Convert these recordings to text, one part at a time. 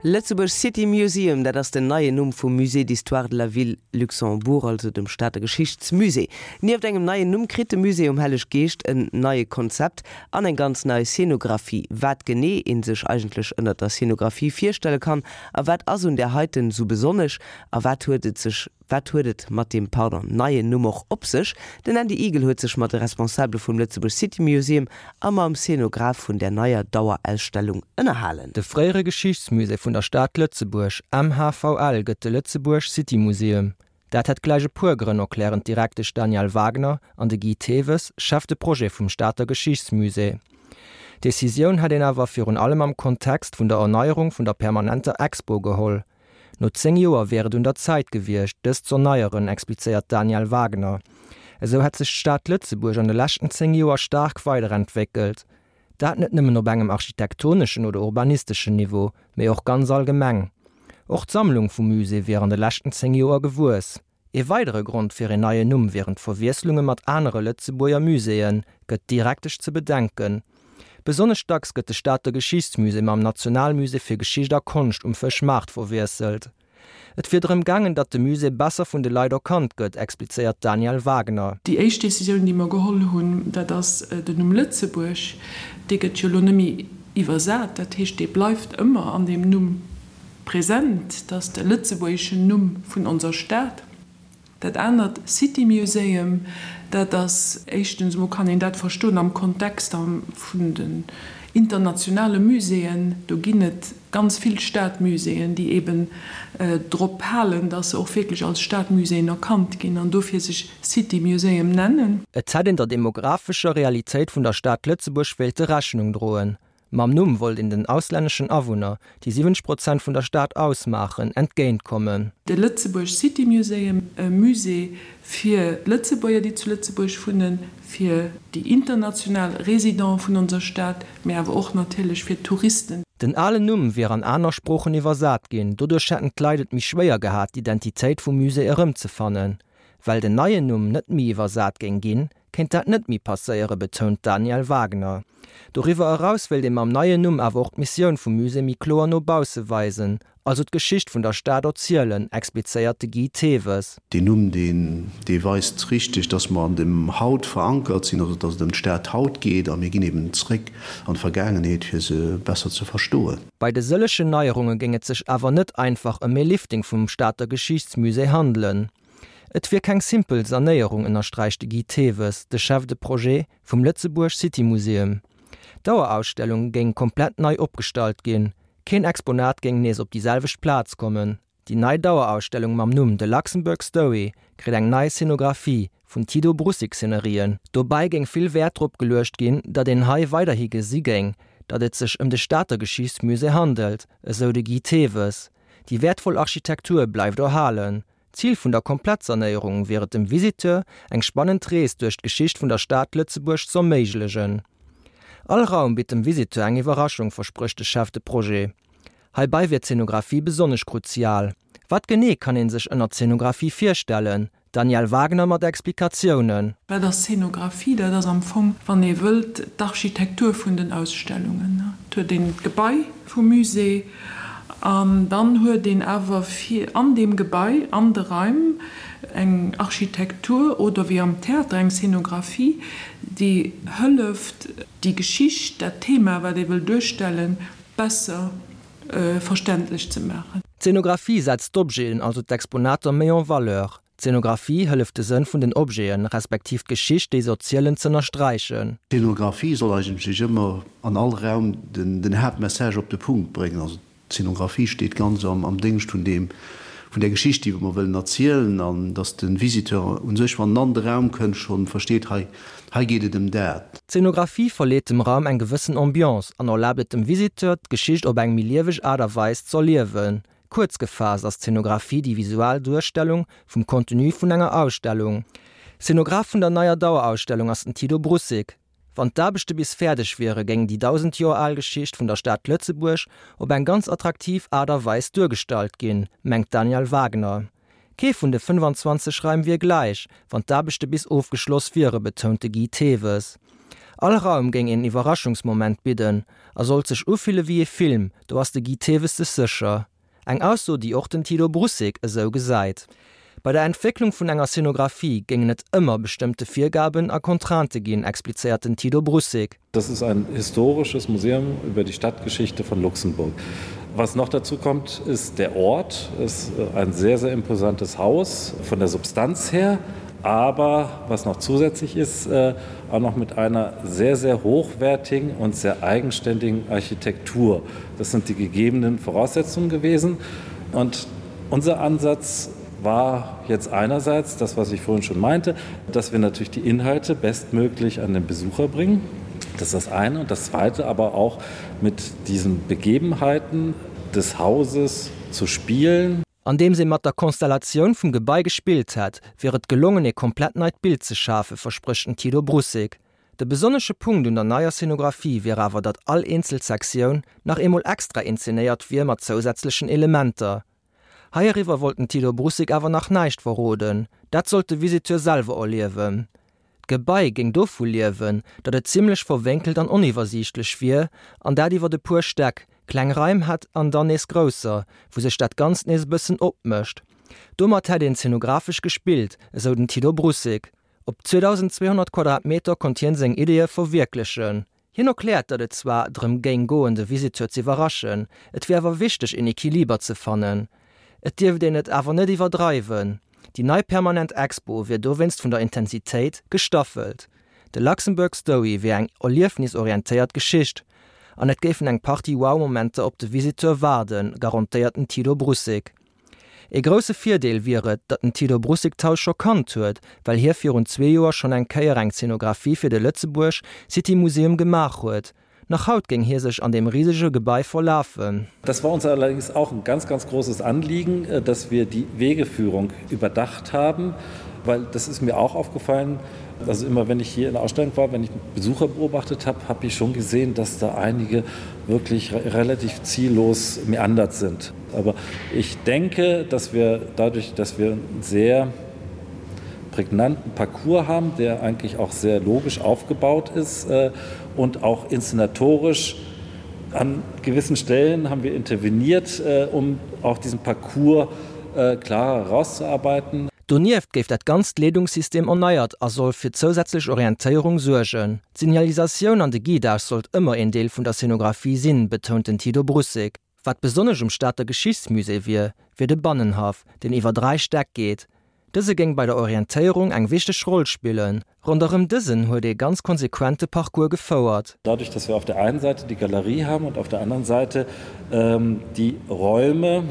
Lëtzebuerg City Museum, dat ass den neien Numm vum Musée d'Histoire de la Ville Luxembourg, also dem Stater Geschichtsmusée. Nieft engem neien Numm kritt de Musée um Helleg Geescht en neie Konzept an eng ganz nei Scenographie. Wat genee ee sech eigentlech ënnert der Scenographie virstelle kann a wat ass un där heiten esou besonnesch a wat huet et sech Wat huet et mat deem, pardon, neien Numm och op sech? Den Andy Eagle huet sech mat de Responsabele vum Lëtzebuerg City Museum a mam Szenograph vun där neier Dauerausstellung ënnerhalen. De fréiere Geschichtsmusée vun der Stad Lëtzebuerg, MHVL, gëtt de Lëtzebuerg City Museum. Dat hätt gläich e puer Grënn, erklären d'Direktesch Danièle Wagner an de Guy Thewes, Chef de Projet vum Stater Geschichtsmusée. D'Decisioun hätt een awer virun allem am Kontext vun der Erneierung vun der permanenter Expo geholl. No 10 Joer wier et un der Zäit gewiescht, dës z'erneieren, explizéiert d'Danièle Wagner. Esou hätt sech d'Stad Lëtzebuerg an de leschten 10 Joer staark weiderentwéckelt. Dat net nëmmen op engem architektoneschen oder urbanisteschen Niveau, mee och ganz allgemeng. Och d'Sammlung vum Musée wier an de leschten 10 Joer gewuess. Ee weidere Grond fir een neien Numm wieren d'Verwiesslunge mat anere Lëtzebuerger Muséeën, gëtt d'Direktesch ze bedenken. Besonnesch dacks gëtt de Stater Geschichtsmusée mam Nationalmusée fir Geschicht a Konscht um Fëschmaart verwiesselt. Et wier drëm gaangen, datt de Musée besser vun de Leit erkannt gëtt, explizéiert d'Danièle Wagner. Déi éischt Decisioun, déi mer geholl hunn, dat ass den Numm Lëtzebuerg. Dee gëtt jo elo net méi iwwersat, dat heescht, dee bleift ëmmer an deem Numm. Present, dat ass de lëtzebuergeschen Numm vun onser Stad. Dat anert, City Museum, dat ass, éischtens emol kann een dat verstoen am Kontext vun den internationale Muséeën. Do ginn et ganz vill Stadmuséeën, déi eben drop halen, datt se och wierklech als Stadmuséeën erkannt ginn an dofir sech City Museum nennen. Et hätt een der demographescher Realitéit vun der Stad Lëtzebuerg wéilte Rechnung droen. Mam Numm wollt een den auslänneschen Awunner, déi 70 Prozent vun der Stad ausmaachen, entgéint kommen. De Lëtzebuerg City Museum, e Musée fir d'Lëtzebuerger, déi zu Lëtzebuerg wunnen, fir déi international Résidenten vun onser Stad, mee awer och natierlech fir d'Touristen. Den alen Numm wier an aner Sproochen iwwersat ginn, doduerch hätten d'Leit et méi schwéier gehat, d'Identitéit vum Musée erëmzefannen. Well den neien Numm net méi iwwersat géing ginn, kéint dat net méi passéieren, betount d'Danièle Wagner. Doriwwer eraus wéilt ee mam neien Numm awer och d'Missioun vum Musée méi kloer no bausse weisen, also d'Geschicht vun der Stad erzielen, explizéiert de Guy Thewes. Deen Numm, deen, dee weist richteg, dass mer an dem Haut verankert sinn, also dass et ëm d'Stad haut geet a mir ginn eben zréck an d'Vergaangenheet, fir se besser ze verstoen. Bei de sëllegen Neierunge géing et sech awer net einfach ëm ee Lifting vum Stater Geschichtsmusée handelen. Et wier keng simpel Sanéierung, ënnersträicht de Guy Thewes, de Chef de Projet vum Lëtzebuerg City Museum. D'Dauerausstellung géing komplett nei opgestallt ginn. Keen Exponat géing nees op déi selwecht Plaz kommen. Déi nei Dauerausstellung mam Numm The Luxembourg Story kritt eng nei Scenographie vun Tido Brussig Szenerien. Dobäi géing vill Wäert drop geluecht ginn, datt een hei weiderhi gesi géing, datt et sech ëm de Stater Geschichtsmusée handelt, esou de Guy Thewes. Déi wäertvoll Architektur bleift erhalen. Zil vun der Komplettsanéierung wier et dem Visiteur eng spannend Rees duerch d'Geschicht vun der Stad Lëtzebuerg z'erméiglegen. All Raum bitt dem Visiteur eng Iwwerraschung, versprécht de Chef de Projet. Heibei wier d'Zenographie besonnesch kruzial. Wat genee kann ee sech ënner Zenographie virstellen? Danièle Wagner mat Explikatiounen. Wat ass Zenographie? Dat ass am Fong, wann ee wëllt, d'Architektur vun den Ausstellungen. Et huet een d'Gebai vum Musée an dann huet een awer fir an deem Gebai, an de Raim, eng Architektur oder wéi am Theater eng Zenographie, déi hëlleft, déi Geschicht, dat Thema, wat ee wëll duerstellen, besser verständlech ze maachen. D'Zenographie setzt d'Objeten, also d'Exponater, méi en valeur. D'Zenographie hëlleft de Sënn vun den Objeten, respektiv d'Geschicht déi se erzielen, z'ënnersträichen. D'Zenographie soll eigentlech ëmmer an all Raum den Haaptmessage op de Punkt bréngen. Also d'Zenographie steet ganz am Déngscht vun deem, vun där Geschicht déi mer wëllen erzielen an datt de Visiteur u sech, wann en an de Raum kënnt, schonn versteet, hei, hei geet et ëm dat. D'Zenographie verleet dem Raum eng gewëssen Ambiance an erlaabt et dem Visiteur, d'Geschicht op eng méi lieweg Aart a Weis z'erliewen. Kuerz gefaasst ass d'Zenographie déi visual Duerstellung vum Contenu vun enger Ausstellung. Szenograph vun der neier Dauerausstellung ass den Tido Brussig. Wann d'Aarbechte bis fäerdeg wiere géing déi 1.000 Joer al Geschicht vun der Stad Lëtzebuerg op eng ganz attraktiv Aart a Weis duergestallt ginn, mengt d'Danièle Wagner. Kee vun de 25 Raim wier gläich, wann d'Aarbechte bis ofgeschloss wiere, betount de Guy Thewes. All Raum géing een Iwwerraschungsmoment bidden a sollt sech ufille wéi ee Film, do ass de Guy Thewes sech sécher. Eng Ausso, déi och den Tilo Brussig esou gesäit. Bei der Entwécklung vun enger Scenographie géingen et ëmmer bestëmmte Virgaben a Contraintë ginn, explizéiert den Tilo Brussig. Das ist ein historisches Museum über die Stadtgeschichte von Luxemburg. Was noch dazu kommt, ist der Ort ist ein sehr sehr imposantes Haus von der Substanz her, aber was noch zusätzlich ist, äh, auch noch mit einer sehr sehr hochwertigen und sehr eigenständigen Architektur. Das sind die gegebenen Voraussetzungen gewesen. Und unser Ansatz war jetzt einerseits das, was ich vorhin schon meinte, dass wir natürlich die Inhalte bestmöglich an den Besucher bringen. Das ist das eine und das zweite aber auch mit diesen Begebenheiten des Hauses zu spielen. Andeems ee mat der Konstellatioun vum Gebai gespillt hätt, wier et gelongen ee komplett neit Bild ze schafen, versprécht den Tilo Brussig. De besonnesche Punkt un der neier Scenographie wier awer, datt all eenzel Sektioun nach eemol extra inzenéiert wier mat zousätzlechen Elementer. Heiriwwer wollt den Tilo Brussig awer nach näischt verroden, dat sollt de Visiteur selwer erliewen. D'Gebai géing dovu liewen, datt et zimmlech verwénkelt an oniwwersiichtlech wier, an dat iwwert e puer Stäck, kleng Raim hätt an dann nees grousser, wou sech dat Ganzt nees e bëssen opmécht. Domat hätt een zenographesch gespillt, esou den Tilo Brussig. Op 2.200 Quadratmeter konnt hien seng Ideeë verwierklechen. Hien erkläert, datt et zwar drëm géing goen, de Visiteur z'iwwerraschen, et wier awer wichteg een Equiliber ze fannen. Et dierft een et awer net iwwerdreiwen. Déi nei permanent Expo wier dowéinst vun der Intensitéit gestaffelt. De Luxembourg Story wier eng erliefnisorientéiert Geschicht an et géifen eng Partie Wow-Momenter op de Visiteur waarden, garantéiert den Tilo Brussig. Ee grousse Virdeel wier et, datt den Tilo Brussig d'Haus scho kannt huet, well hie virun zwee Joer schonn eng Kéier eng Zenographie fir de Lëtzebuerg City Museum gemaach huet. Nach haut géing hie sech an deem risege Gebai verlafen. Das war uns allerdings auch ein ganz, ganz großes Anliegen, dass wir die Wegeführung überdacht haben, weil das ist mir auch aufgefallen, also immer wenn ich hier in der Ausstellung war, wenn ich Besucher beobachtet habe, habe ich schon gesehen, dass da einige wirklich relativ ziellos meandert sind. Aber ich denke, dass wir dadurch, dass wir einen sehr prägnanten Parcours haben, der eigentlich auch sehr logisch aufgebaut ist äh, und auch inszenatorisch an gewissen Stellen haben wir interveniert, äh, um auch diesen Parcours äh, klarer herauszuarbeiten. Donieft géif dat ganzt Leedungssystem erneiert a soll fir zousätzlech Orientéierung suergen. D'Signalisatioun an de Guidage sollt ëmmer een Deel vun der Scenographie sinn, betount den Tito Brussig. Wat besonnesch um Stater Geschichtsmusée wier, wier de Bannenhaff, deen iwwer 3 Stäck geet. Dëse géing bei der Orientéierung eng wichteg Roll spillen. Ronderëm dësen huet ee ganz konsequent de Parcours gefouert. Dadurch, dass wir auf der einen Seite die Galerie haben und auf der anderen Seite ähm, die Räume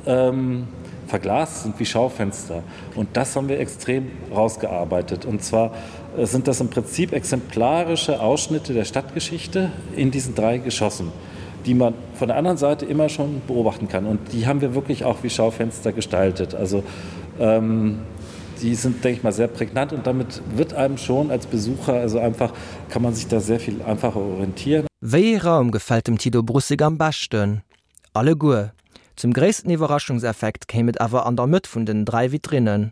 ähm, verglast sind wie Schaufenster. Und das haben wir extrem rausgearbeitet. Und zwar äh, sind das im Prinzip exemplarische Ausschnitte der Stadtgeschichte in diesen drei Geschossen die man von der anderen Seite immer schon beobachten kann. Und die haben wir wirklich auch wie Schaufenster gestaltet. Also ähm, die sind, denke ich mal, sehr prägnant und damit wird einem schon als Besucher also einfach kann man sich da sehr viel einfacher orientieren. Wéi ee Raum gefält dem Tito Brussig am beschten? Alleguer. Zum gréissten Iwwerraschungseffekt kéim et awer an der Mëtt vun den 3 Vitrinnen.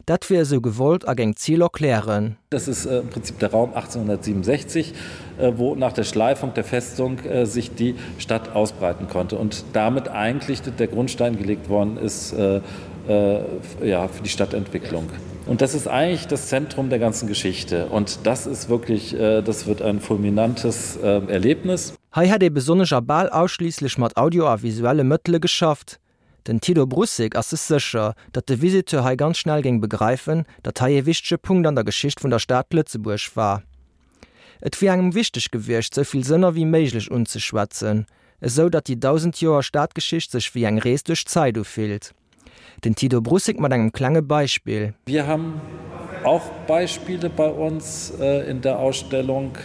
Dat wier esou gewollt a géing d'Zil erklären. Das ist äh, im Prinzip der Raum 1867, äh, wo nach der Schleifung der Festung äh, sich die Stadt ausbreiten konnte und damit eigentlich der Grundstein gelegt worden ist ja, für die Stadtentwicklung. Und das ist eigentlich das Zentrum der ganzen Geschichte. Und das ist wirklich das wird ein fulminantes Erlebnis. Hei hätt ee besonnesch a bal ausschliisslech mat Audio a visuelle Mëttele geschafft. Den Tilo Brussig ass sech sécher, datt de Visiteur hei ganz schnell géing begreifen, datt hei ee wichtege Punkt an der Geschicht vun der Stad Lëtzebuerg war. Et wier engem wichteg gewiescht, sou vill Sënner wéi méiglech unzeschwätzen, esou datt déi 1.000 Joer Stadgeschicht sech wéi eng Rees duerch d'Zäit ufillt. Den Tito Brussig mat engem klenge Beispill. Wir haben auch Beispiele bei uns äh, in der Ausstellung,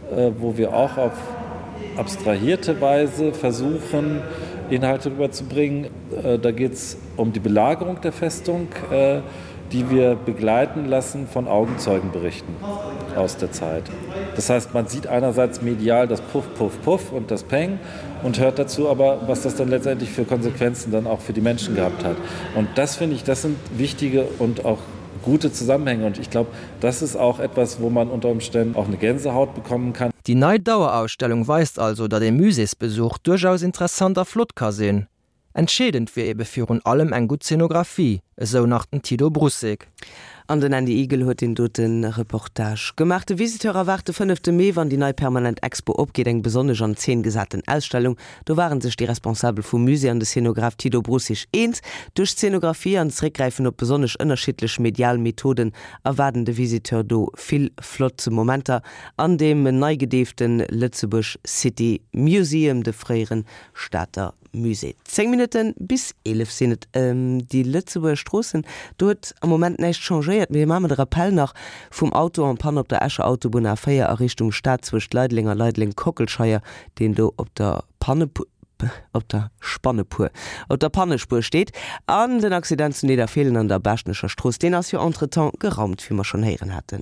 äh, wo wir auch auf abstrahierte Weise versuchen, Inhalte rüberzubringen. Äh, da geht es um die Belagerung der Festung, äh, die wir begleiten lassen von Augenzeugenberichten aus der Zeit. Das heißt, man sieht einerseits medial das Puff, Puff, Puff und das Peng und hört dazu aber, was das dann letztendlich für Konsequenzen dann auch für die Menschen gehabt hat. Und das finde ich, das sind wichtige und auch. gute Zusammenhänge und ich glaube, das ist auch etwas, wo man unter Umständen auch eine Gänsehaut bekommen kann. Déi nei Dauerausstellung weist also, datt ee Muséesbesuch duerchaus interessant a flott ka sinn. Entscheedend wier ebe virun allem eng gutt Zeenografie, esou nach den Tido Brussig. An den Andy Eagle huet deen dote Reportage gemaach. De Visiteur erwaart de fënnefte Mee, wann déi nei permanent Expo opgeet, eng besonnesch an Zeen gesaten Ausstellung. Do ware sech déi Responsabel vum Musée an de Szenograph Tido Brussig eens. Duerch d'Szenografie an d'Zeréckgräifen op besonnesch ënnerschiddlech medial Methoden erwaarden de Visiteur do vill flott Momenter an deem nei gedeefte Lëtzebuerg City Museum, de fréiere Stater Musée. 10 Minutte bis 11 sinn et. Déi Lëtzebuerger Stroossen, do huet am Moment näischt changéiert. Mee maache mer de Rappel nach vum Auto en panne op der Escher Autobunn A4 a Richtung Stad zwëscht Leideleng a Leideleng-Kockelscheier, deen do op der Panne, op der Spannepuer, op der Pannespuer steet. An den Accident zu Nidderfeelen an der Baaschtnecher Strooss, deen ass jo entretemps geraumt, wéi mer schonn héieren haten.